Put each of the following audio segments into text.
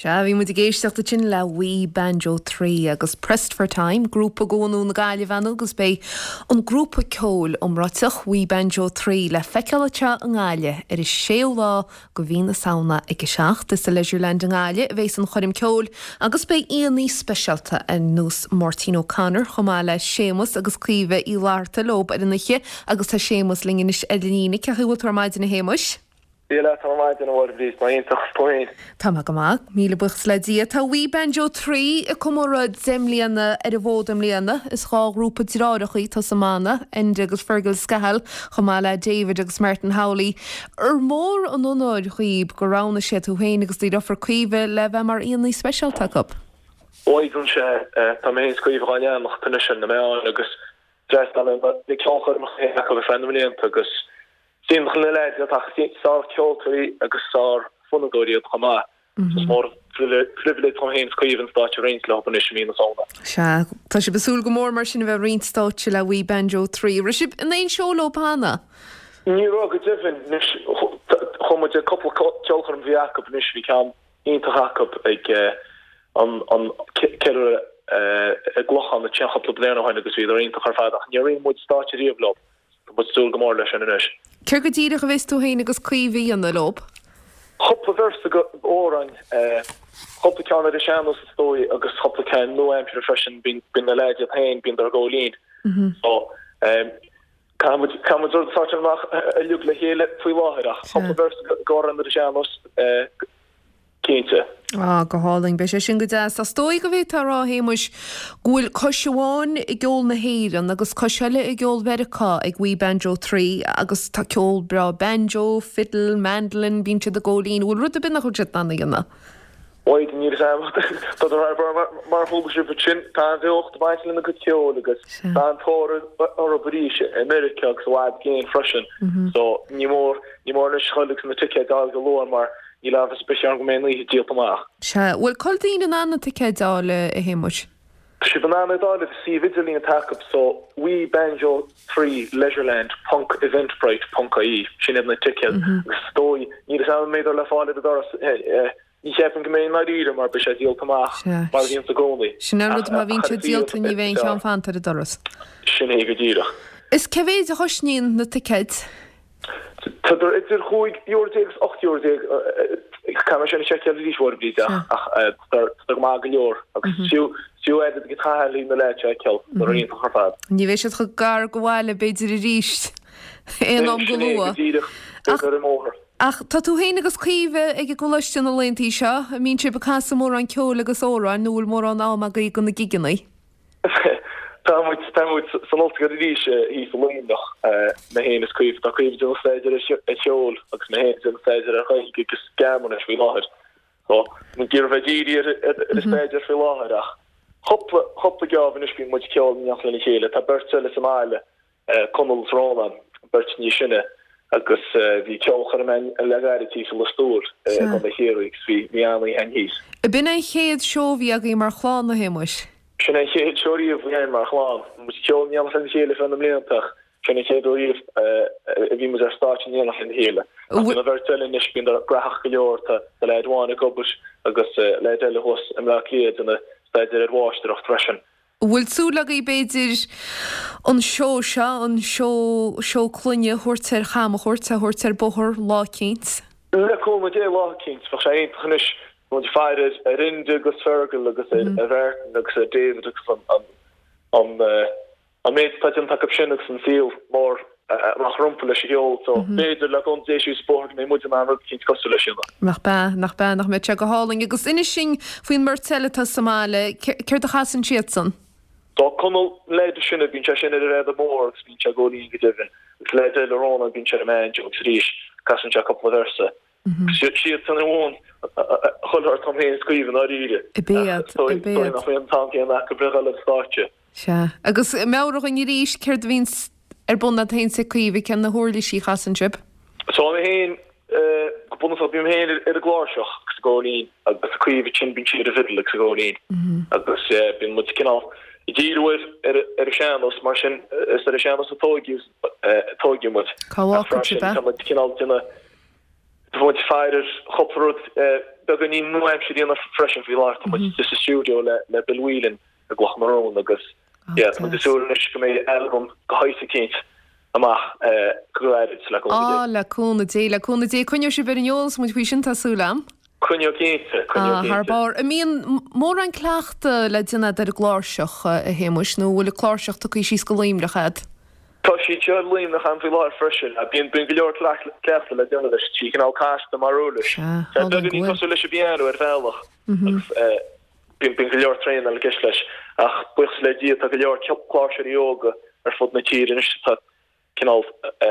Sea, bhí muid ag éisteacht ansin le We Banjo 3 agus Pressed for Time, grúpa go bhunú na Gaillimhe ann agus beidh an grúpa ceoil iomráiteach We Banjo 3 le feiceáil anseo i nGaillimh ar an séú lá go mhí na Samhna ag 7. Is sa Leisureland i nGaillimh a bheas an choirm ceoil agus beidh aíonna speisialta ar nós Máirtín O'Connor chomh maith le Séamus agus Caoimhe Uí Fhlatharta leo ar an oíche agus tá Séamus linn anois ar an líne. Cén chaoi a bhfuil tú ar maidin a Shéamuis? Dia leat ar maidin, a Mháire Bhríd, mé iontach, is tú féin? Tá mé go maith, míle buíochas le Dia. Tá We Banjo 3 ag comóradh 10 mbliana ar an bhfód i mbliana. Is 2 ghrúpa deartháireacha atá sa mbanna, Enda agus Fergal Scahill, chomh maith le David agus Martin Howley. Ar mór an onóir dhaoib gur roghnaigh siad tú féin agus do dheirfiúr Caoimhe le bheith mar aíonna speisialta acu? Bhuel, sea, tá mé féin is Caoimhe dhá leanacht anois ar na meáin agus d'fhreastail mé ar na ceolchoirmeacha acu ar feadh na mblianta agus Is iontach na leaids iad ach is sár-cheoltóirí agus sár-fhonnadóirí iad chomh maith. Is mór an phribhléid dom féin is Caoimhe an stáitse a roinnt leo anois i mí na Samhna. Sea, tá sibh ag súil go mór mar sin a bheith ag roinnt stáitse le We Banjo 3. Raibh sibh in aon seó leo cheana? Ní raibh go deimhin. Anois, chuaigh muid ag cúpla ceolchoirm a bhí acu anois, bhí ceann iontach acu ag an ceiliúradh i gClochán ansin cúpla bliain ó shin agus bhíodar iontach ar fad ach níor roinn muid stáitse riamh leo. Tá muid ag súil go mór leis sin anois. Céard go díreach a bheas tú féin agus Caoimhe a dhéanamh leo? Cúpla véarsa go amhráin, cúpla ceann ar an sean-nós is dóigh agus cúpla ceann nua-aimseartha freisin, bíonn na leaids iad féin, bíonn ag gabháil fhoinn. So, caithfidh muid, caithfidh muid rud a sortáil amach uilig le chéile faoi láthair ach cúpla véarsa go amhráin ar an sean-nós, Cinnte. Ah, go hálainn. Beidh sé sin go deas. Is dóigh go bhféadfá a rá, a Shéamuis, go bhfuil cois amháin i gceol na hÉireann agus cois eile i gceol Mheiriceá ag We Banjo 3 agus tá ceol breá banjo, fiddle, mandolin, bíonn siad ag gabháil fhoinn. An bhfuil rud ar bith nach bhfuil siad in ann a dhéanamh? Bhuel, níl a fhios agam. Tá mar mar chuala sibh ansin, tá an-bheocht ag baint lena gcuid ceoil agus tá an-tóir orthu arís i Meiriceá agus i bhfad i gcéin freisin. So, ní mór, ní mór anois dhul agus na ticéid a fháil go luath mar Níl amhras ar bith ann go mbeidh an oíche díolta amach. Sea. Bhfuil cá bhfuil daoine in ann na ticéid a fháil, a Shéamuis? Tá sibh in ann iad a fháil ar an suíomh idirlín atá acu so we banjo 3 leisureland ponc eventbrite ponc ie. Sin iad na ticéid agus is dóigh, níl a fhios agam an mbeidh le fáil ar an doras, ní cheapaim go mbeidh i ndáiríre mar beidh sé díolta amach mar a bhíonns i gcónaí. Sin an rud, má bhíonn sé díolta ní bheidh aon cheann fanta ar an doras. Sin é go díreach. Is cé mhéid a chosnaíonn na ticéid? Tá idir €15 agus €18, caithfidh mé sin a sheiceáil arís a Mháire Bhríd ach tá go maith go leor agus fiú fiú oiread ag taithí na leaids a fheiceáil, tá iontach ar fad. Ní bheidh siad chomh gar go bhaile b'fhéidir arís aon am go Sin é go luath. díreach, Ach beidh ar an mbóthar. Ach tá tú féin agus Caoimhe ag an gcoláiste na laethanta seo, an mbíonn sibh ag casadh mórán ceoil agus amhráin nó bhfuil mórán am agaibh do na gigeanna? Tá muid, tá muid san ollscoil arís thíos i Luimneach, mé féin is Caoimhe. Tá Caoimhe ag déanamh staidéar ar cheol agus mé féin ag déanamh staidéar ar Ghaeilge agus Gearmáinis faoi láthair. So, muid ag iarraidh bheith dírithe ar ar an staidéar faoi láthair ach cúpla, cúpla geábh anois bíonn muid ag ceol in éineacht lena chéile. Tá beirt eile sa mbaile Conall is Rónán, beirt níos sine, agus bhí ceolchoirm againn le gairid thíos i Lios Tuathail i gContae Chiarraí agus bhí bhí an-oíche againn thíos. Ab in an chéad seó a bhí agaibh mar chlann, a Shéamuis? Sin é an chéad seó riamh a bhí againn mar chlann. Bhí muid ag ceol in éineacht lena chéile feadh na mblianta ach sin an chéad uair riamh a bhí muid ar stáitse in éineacht lena chéile. Ach bhí na bheirt eile anois, bíonn graitheach go leor, tá leaid amháin ag obair agus leaid eile thuas i mBleá Cliath ag déanamh staidéir ar mháistreacht freisin. An bhfuil súil agaibh, b'fhéidir, an seó seo, an seó, seó clainne a thabhairt ar chamchuairt, a thabhairt ar bóthar lá eicínt? Le cúnamh Dé, lá eicínt. Bheadh sé iontach anois. Tá muid ag faire ar Enda agus Fergal agus ar Mhartin agus ar David agus an, an, an méid atá déanta acu sin agus an saol mór amach rompu leis an cheol. So, b'fhéidir, le cúnamh Dé, síos an bóthar go mbeidh muid in ann rud eicínt cosúil leis sin a. Nach bea, nach bea, nach mbeadh sé go hálainn. Agus inis dúinn faoin mbeirt eile atá sa mbaile, céard a chasann siadsan? Tá Conall, an leaid is sine, bíonn sé sin ar an bhfeadóg mhór agus bíonn sé ag gabháil fhoinn go deimhin. Agus leaid eile, Rónán, bíonn sé ar an mbanjo agus arís casann sé cúpla véarsa. Siadsan a mhúin chuile shórt dom féin is Caoimhe i ndáiríre. Ab iad, Ach ab iad. Nach mbíonn an t-am céanna acu le dhul ar an stáitse. Sea. Agus meabhraigh dhúinn arís céard a bhíonns ar bun agat féin is ag Caoimhe, cén na huirlisí a chasann sibh? So mé féin, go bunúsach bím féin ar an gcláirseach agus ag gabháil fhoinn agus Caoimhe ansin bíonn sí ar an bhfidil agus ag gabháil fhoinn. Agus bíonn muid cineál ag díriú ar ar an sean-nós mar sin is ar an sean-nós a tóigeadh tóigeadh muid. Cá Ach bhfágfaidh sibh freisin é? tá muid cineál ag déanamh tá muid ag faire ar chúpla rud. beagáinín nua-aimseartha a dhéanamh freisin faoi láthair. Tá muid istigh sa stiúideo le Bill Whelan i gCloch na Rón agus yeah tá muid ag súil anois go mbeidh albam de shaghas eicínt amach go gairid le cúnamh Dé. Á, le cúnamh Dé, le cúnamh Dé. Coinneoidh sibh ar an eolas muid faoi sin, tá súil a'm. Coinneoidh cinnte, coinneoidh cinnte. Thar barr. An mbíonn mórán cleachta le déanamh a'd ar an gcláirseach, a Shéamuis, nó an bhfuil an cláirseach tugtha síos go Luimneach a'd? Tá sí anseo i Luimneach a'm faoi láthair freisin. Bíonn bíonn go leor cleachta le déanamh leis. Tá sí cineál casta mar uirlis. Sea, Tá beagáinín cosúil leis an bpianó ar bhealach agus bíonn bíonn go leor traenáil i gceist leis. Ach buíochas le Dia tá go leor cláirseoirí óga ar fud na tíre anois atá cineál a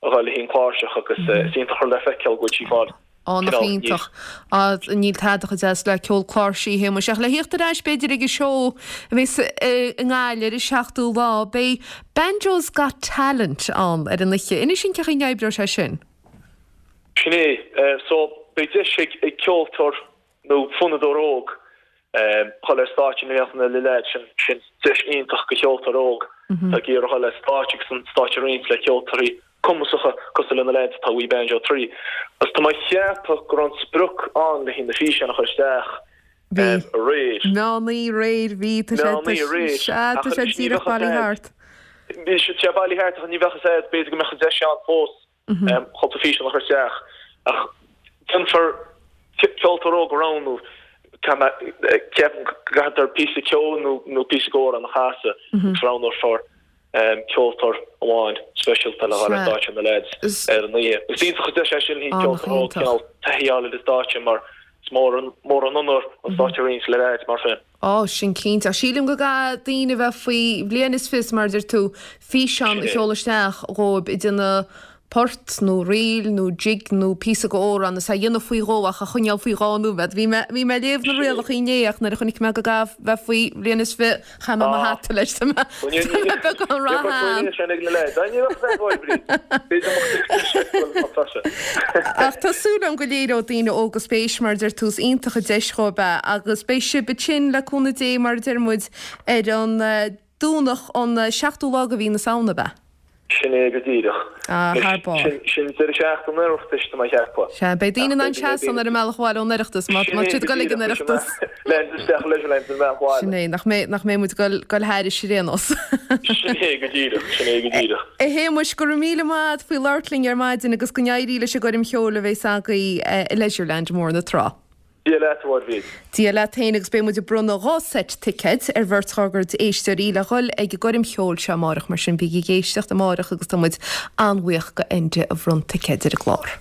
dhul le haghaidh an chláirseach agus is iontach rud le feiceáil go bhfuil sí ag fáil Á, nach cineál iontach. níos. Á, níl tada chomh deas le ceol cláirsí, a Shéamuis. Ach le thíocht ar ais, b'fhéidir, ag an seó a bheas i nGaillimh ar an seachtú lá, beidh Banjo's Got Talent ann ar an oíche. Inis dúinn cén chaoi a n-oibreoidh sé sin. Sin é. So, beidh deis ag ceoltóir nó fonnadóir óg dhul ar stáitse in éineacht le leaids, sin sin deis iontach do cheoltóir óg atá ag iarraidh dhul ar stáitse agus an stáitse a roinnt le ceoltóirí cumasacha cosúil le na leaids atá We Banjo 3. Agus tá mé ag ceapadh go raibh an sprioc ann le haghaidh na físeáin a chur isteach Bhí. aréir. Meán oíche aréir, bhí, tá sé, Meán oíche aréir. sea, Ach tá sé anois ní díreach bheadh a bailithe fhios thart. Bhí sé bailithe thart ach ní bheadh a fhios a'd, b'fhéidir go mbeadh an deis ann fós. cúpla físeán a chur isteach ach déanfar ceoltóir óg a roghnú, ceapaim go gcaithfear píosa ceoil nó píosa d'amhrán a chasadh agus roghnófar ceoltóir amháin speisialta le dhul ar stáitse na leaids ar an oíche. Is iontach an deis é sin do cheoltóir óg cineál taithí a fháil ar an stáitse mar is mór an onóir an stáitse a roinnt le leaids mar sin. Á, sin cinnte. Ach sílim go gcaithfidh daoine a bheith faoi bhliain is fiche, mar a deir tú, físeán a sheoladh isteach dhóibh ag déanamh port nó ríl nó jig nó píosa d'amhrán is é a dhéanamh faoi dhó ach a choinneáil faoi dhá nóiméad. Bhí mé, bhí mé ag léamh na rialacha inné ach nuair a chonaic mé go gcaithfidh bheith faoi bhliain is fiche chaith mé mo hata leis. Tá mé, tá mé beagán ró-shean. Ach tá súil agam go léireoidh daoine óga spéis, mar a deir tú, is iontach an deis dhóibh é agus beidh sibh ansin, le cúnamh Dé, mar a deir muid, ar an Domhnach an seachtú lá de mhí na Samhna, ab ea? Sin é go díreach. Ah, thar barr. Sin deireadh seachtaine an Oireachtais, tá mé a cheapadh. Sea, beidh daoine in ann seasamh ar an mbealach abhaile ón Oireachtas, má tá siad ag dul ag an Oireachtas. Lean isteach i Leisureland ar an mbealach abhaile. Sin é, nach mbeidh, nach mbeidh muid ag dul, dul thairis ar aon nós. Sin é go díreach, sin é go díreach. A Shéamuis, go raibh míle maith agat faoi labhairt linn ar maidin agus go n-éirí leis an gcoirm cheoil a bheas agaibh i Leisureland i mBóthar na Trá. Dia leat, a Mháire. Dia leat féin agus beidh muid ag bronnadh 2 seit ticéid ar bheirt dhár gcuid éisteoirí le dhul ag an gcoirm cheoil seo amárach mar sin bígí ag éisteacht amárach agus tá muid an-bhuíoch go Enda a bhronn ticéid ar an gclár.